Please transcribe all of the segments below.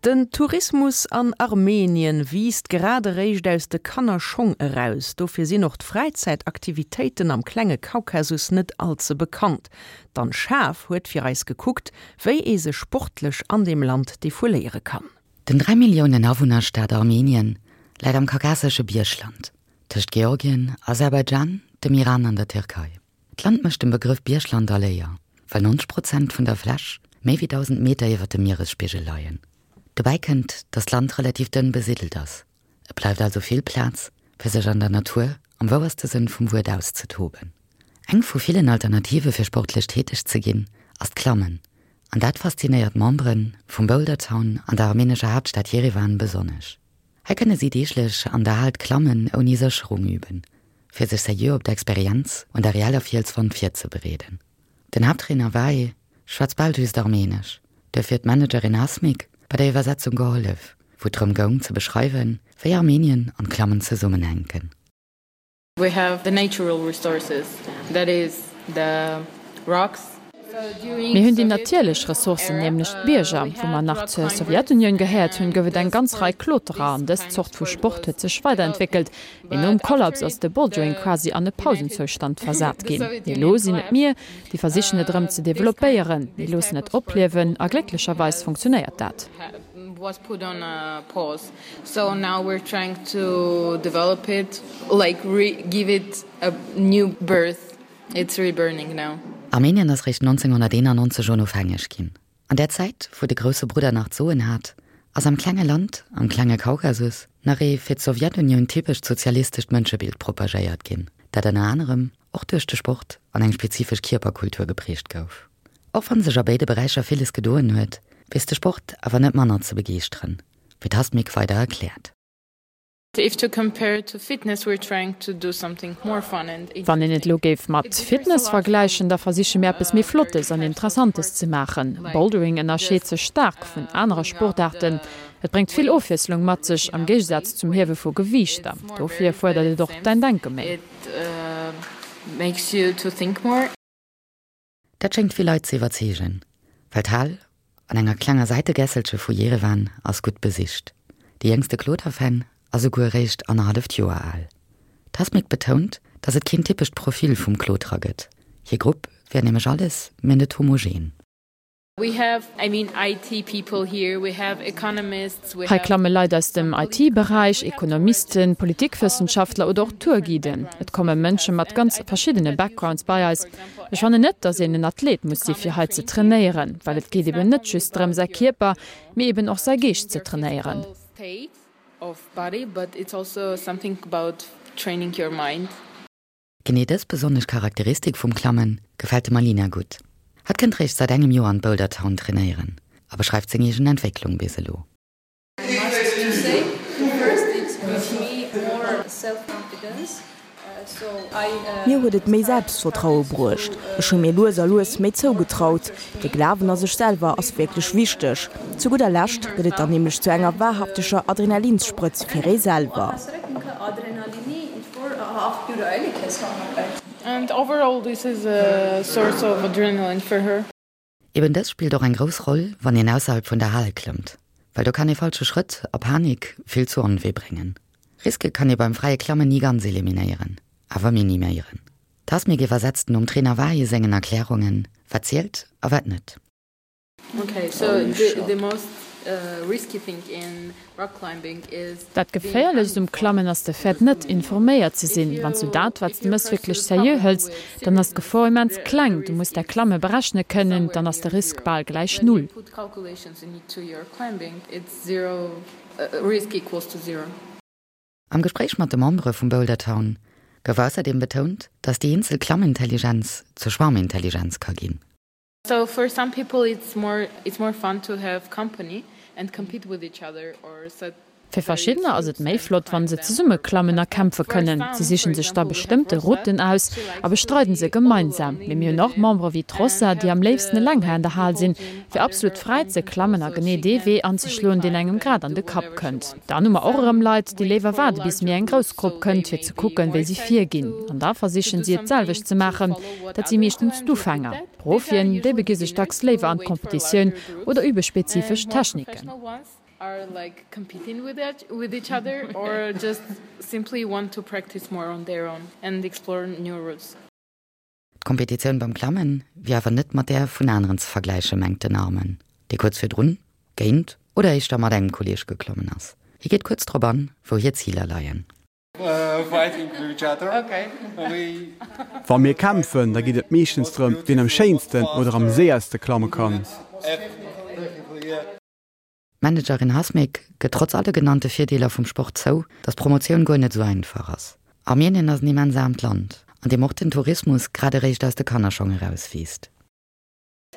Den Tourismus an Armenien wiisst grad eréischt aus de Kannerschong eraus. Dofir sinn och d'Fräizäitaktivitéiten am klenge Kaukasus net all ze bekannt. D'Anne Schaaf huet fir eis gekuckt, wéi ee sech sportlech an deem Land defouléiere kann. Den 3 Milliounen Awunnerstaat Armenien läit am kaukasesche Biergland, tëscht Georgien, Aserbaidschan, dem Iran an der Tierkei. D'Land mécht dem Begrëff Biergland all Éier, well 90 Prozent vun der Fläch méi wéi 1.000 Meter iwwer dem Mieresspigel leien. Dobäi kënnt, datt d'Land relativ dënn besiddelt ass. Et bleift also vill Plaz, fir sech an der Natur am wouerste Sënn vum Wuert auszetoben. Eng vu villen Alternative fir sportlech täteg ze ginn, ass d'Klammen. An dat faszinéiert d'Membere vum Boulder Town an der armenescher Haaptstad Jerewan besonnesch. Hei kënne si deeglech an der Hal d'Klammen ouni Sécherung üben, fir sech seriö op d'Experienz un der reeller Fielswand virzebereeden. Den Haapttrainer Vahe schwätzt bal just Armenesch, duerfir huet d'Managerin Hasmik bei der Iwwersetzung gehollef, wou et drëm goung ze beschreiwen, wéi Armenien an d'Klammen zesummenhänken. We have the natural resources, that is the rocks. Mir hunn déi natierlech Ressourcen, nämlech d'Bierger. Wou mer nach zur Sowjetunioun gehéiert hunn, gouf et eng ganz Rei Kloterer an dës Zort vu Sport huet sech weiderentwéckelt. Mee nom Kollaps ass de Bouldering quasi an e Pausenzoustand versat ginn. Mee elo sinn et mir, déi versichen et erëm ze developpéieren. Mir loossen et opliewen a glécklecherweis funktionéiert dat. So now we're trying to develop it, like re give it a new birth, it's reburning now. Armenien ass réischt 1991 onofhängeg ginn. An där Zäit, wou de grousse Brudder nach d'Soen hat, ass am klenge Land am klenge Kaukasus nach ee fir d'Sowjetunioun typescht sozialistescht Mënschebild propagéiert ginn, dat ënner anerem och duerch de Sport an eng spezifesch Kierperkultur geprägt gouf. Och wann sech a béide Beräicher villes gedoen huet, weess de Sport awer net manner ze begeeschteren. Wéi d'Hasmik weider erkläert. Wann een et elo géif mat Fitness vergläichen, da versiche mir eppes méi Flottes an Interessantes ze maachen. Bouldering ënnerscheet sech staark vun anere Sportaarten. Et bréngt vill Ofwiesslung mat sech, am Géigesaz zum Hiewe vu Gewiichter. Dofir fuerdert et och däin Denke méi. Dat schéngt vill Leit ze iwwerzeegen, well d'Hal an enger klenger Säitegässelche vu Jerewan ass gutt besicht. De jéngste Kloterfan ass esouguer eréischt annerhalleft Joer al. D'Hasmik betount, datt et keen typescht Profil vum Kloterer gëtt. Hir Grupp wär nämlech alles, mä net homogen. Hei klamme Leit aus dem IT-Beräich, Ekonomisten, Politikwëssenschaftler oder och Tourguiden. Et komme Mënsche mat ganz verschiddene Backgrounds bei eis. Ech fannen net, datt een en Athlet muss si fir hei ze trainéieren, well et geet eben net just drëm säi Kierper, mee eben och säi Geescht ze trainéieren. Genee dës besonnesch Charakteristik vum Klammen gefält dem Alina gutt. Hatt kënnt réischt säit engem Joer an d'Boulder Town trainéieren a beschreift seng eegen Entwécklung bis elo. Mir huet et méi Selbstvertraue bruecht. Ech hu mir lues a lues méi zougetraut. De Glawen a sech selwer ass wierklech wichteg. Zu gudder Lescht gëtt et dann nämlech zu enger wahrhafteger Adrenalinssprëtz fir ee selwer. Eben dës spillt och eng grouss Roll, wann een ausserhalb vun der Hal klëmmt, well do kann ee falsche Schrëtt a Panik vill zu Onwee bréngen. Riske kann ee beim fräie Klammen ni ganz eliminéieren, awer miniméieren. D'Hasmik iwwersetzt nom Trainer Vahi sengen Erklärungen, wat zielt a wat net. Dat Geféierlechst um Klammen ass de Fait, net informéiert ze sinn. Wann s du dat, wat s de mëss, wierklech seriö hëls, dann ass d'Gefor immens kleng. Du muss däi Klamme berechne kënnen, dann ass de Risk bal gläich null. Am Gespréich mat de Membere vum Boulder Town gouf ausserdeem betount, datt déi eenzel Klammintelligenz zur Schwarmintelligenz ka ginn. Fir verschiddener ass et méi flott, wann se zesumme klammen a kämpfe kënnen. Si sichen sech da bestëmmte Routen aus a bestreiden se gemeinsam. Mee mir hunn och Membere wéi d'Rossa, déi am léifsten eleng hei an der Hal sinn, fir absolut fräi ze klammen a genee dee Wee anzeschloen, deen engem grad an de Kapp kënnt. Dann hu mer och erëm Leit, déi léiwer waarde bis méi eng grouss Grupp kënnt, fir ze kucken, wéi si virginn. An da versichen si et d'selwecht ze maachen. Dat si meeschtens d'Ufänger. D'Profien, déi begi sech dacks léiwer an d'Competitioun oder übe spezifesch Techniken. Are like competing with it with each other or just simply want to practice more on their own and explore new routes. D'Kompetitioun beim Klammen wier awer net mat där vun aneren ze vergläichen, mengt den Armen, dee kuerz virdrun géint oder éischter mat engem Kolleeg geklommen ass. Hie geet kuerz drop an, wou hir Ziler leien. Wa mir kämpfen, da geet et meeschtens drëm, wien am schéinsten oder am séierste klamme kann. D'Managerin Hasmik gëtt trotz alle genannte Virdeeler vum Sport zou, datt d'Promotioun guer net esou einfach ass. Armenien ass en immens aarmt Land, an deem och den Tourismus grad eréischt aus de Kannerschong erauswiisst.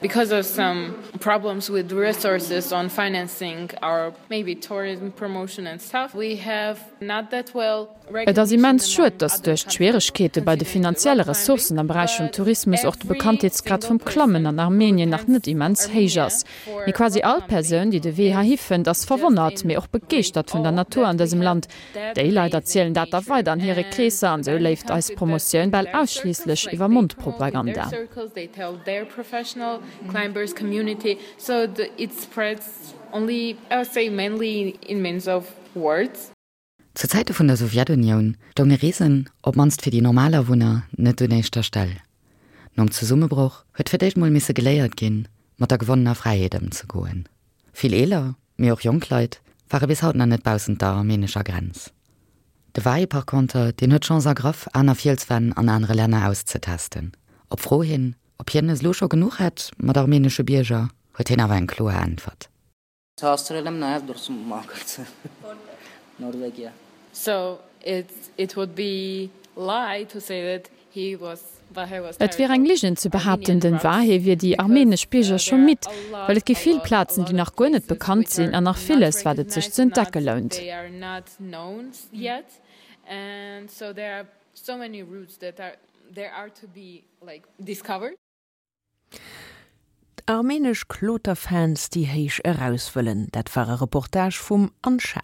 Because of some problems with resources on financing our maybe tourism promotion and stuff, we have not that well Et ass immens schued, datt duerch d'Schwieregkeete bei de finanzielle Ressourcen am Beräich vum Tourismus och de Bekanntheetsgrad vum Klammen an Armenien nach net immens héich ass. Mee quasi all Persoun, déi de Wee heihi fënnt, ass verwonnert, mee och begeeschtert vun der Natur an dësem Land. Déi Leit erzielen dat da weider an hire Kreesser an esou léift eis Promotioun bal ausschliisslech iwwer Mondpropaganda. Zu Zäite vun der Sowjetunioun stounge Reesen, op d'mannst fir déi normal Awunner, net un éischter Stell. Nom Zesummebroch huet fir d'éischt mol misse geléiert ginn, mat der gewonnener Fräiheet ëmzegoen. Vill eeler, mee och jonk Leit ware bis haut nach net baussent der armenescher Grenz. De Vahe par conter, deen huet d'Chance ergraff, aner Fielswänn an anere Länner auszetesten. Op Fro hin, ob hien es elo scho genuch hätt mat armenesche Bierger, huet hien awer eng kloer Äntwert. So it it would be lie to say that he was Vahe was Et wier eng Ligen ze behaapten, den Vahe wier déi armenesch Bierger scho midd, well et gi vill Plazen, déi nach guer net bekannt sinn an nach villes, wat et sech ze entdecke lount. Armenesch Kloterfans, déi héich eraus wëllen, dat war e Reportage vum Anne Schaaf.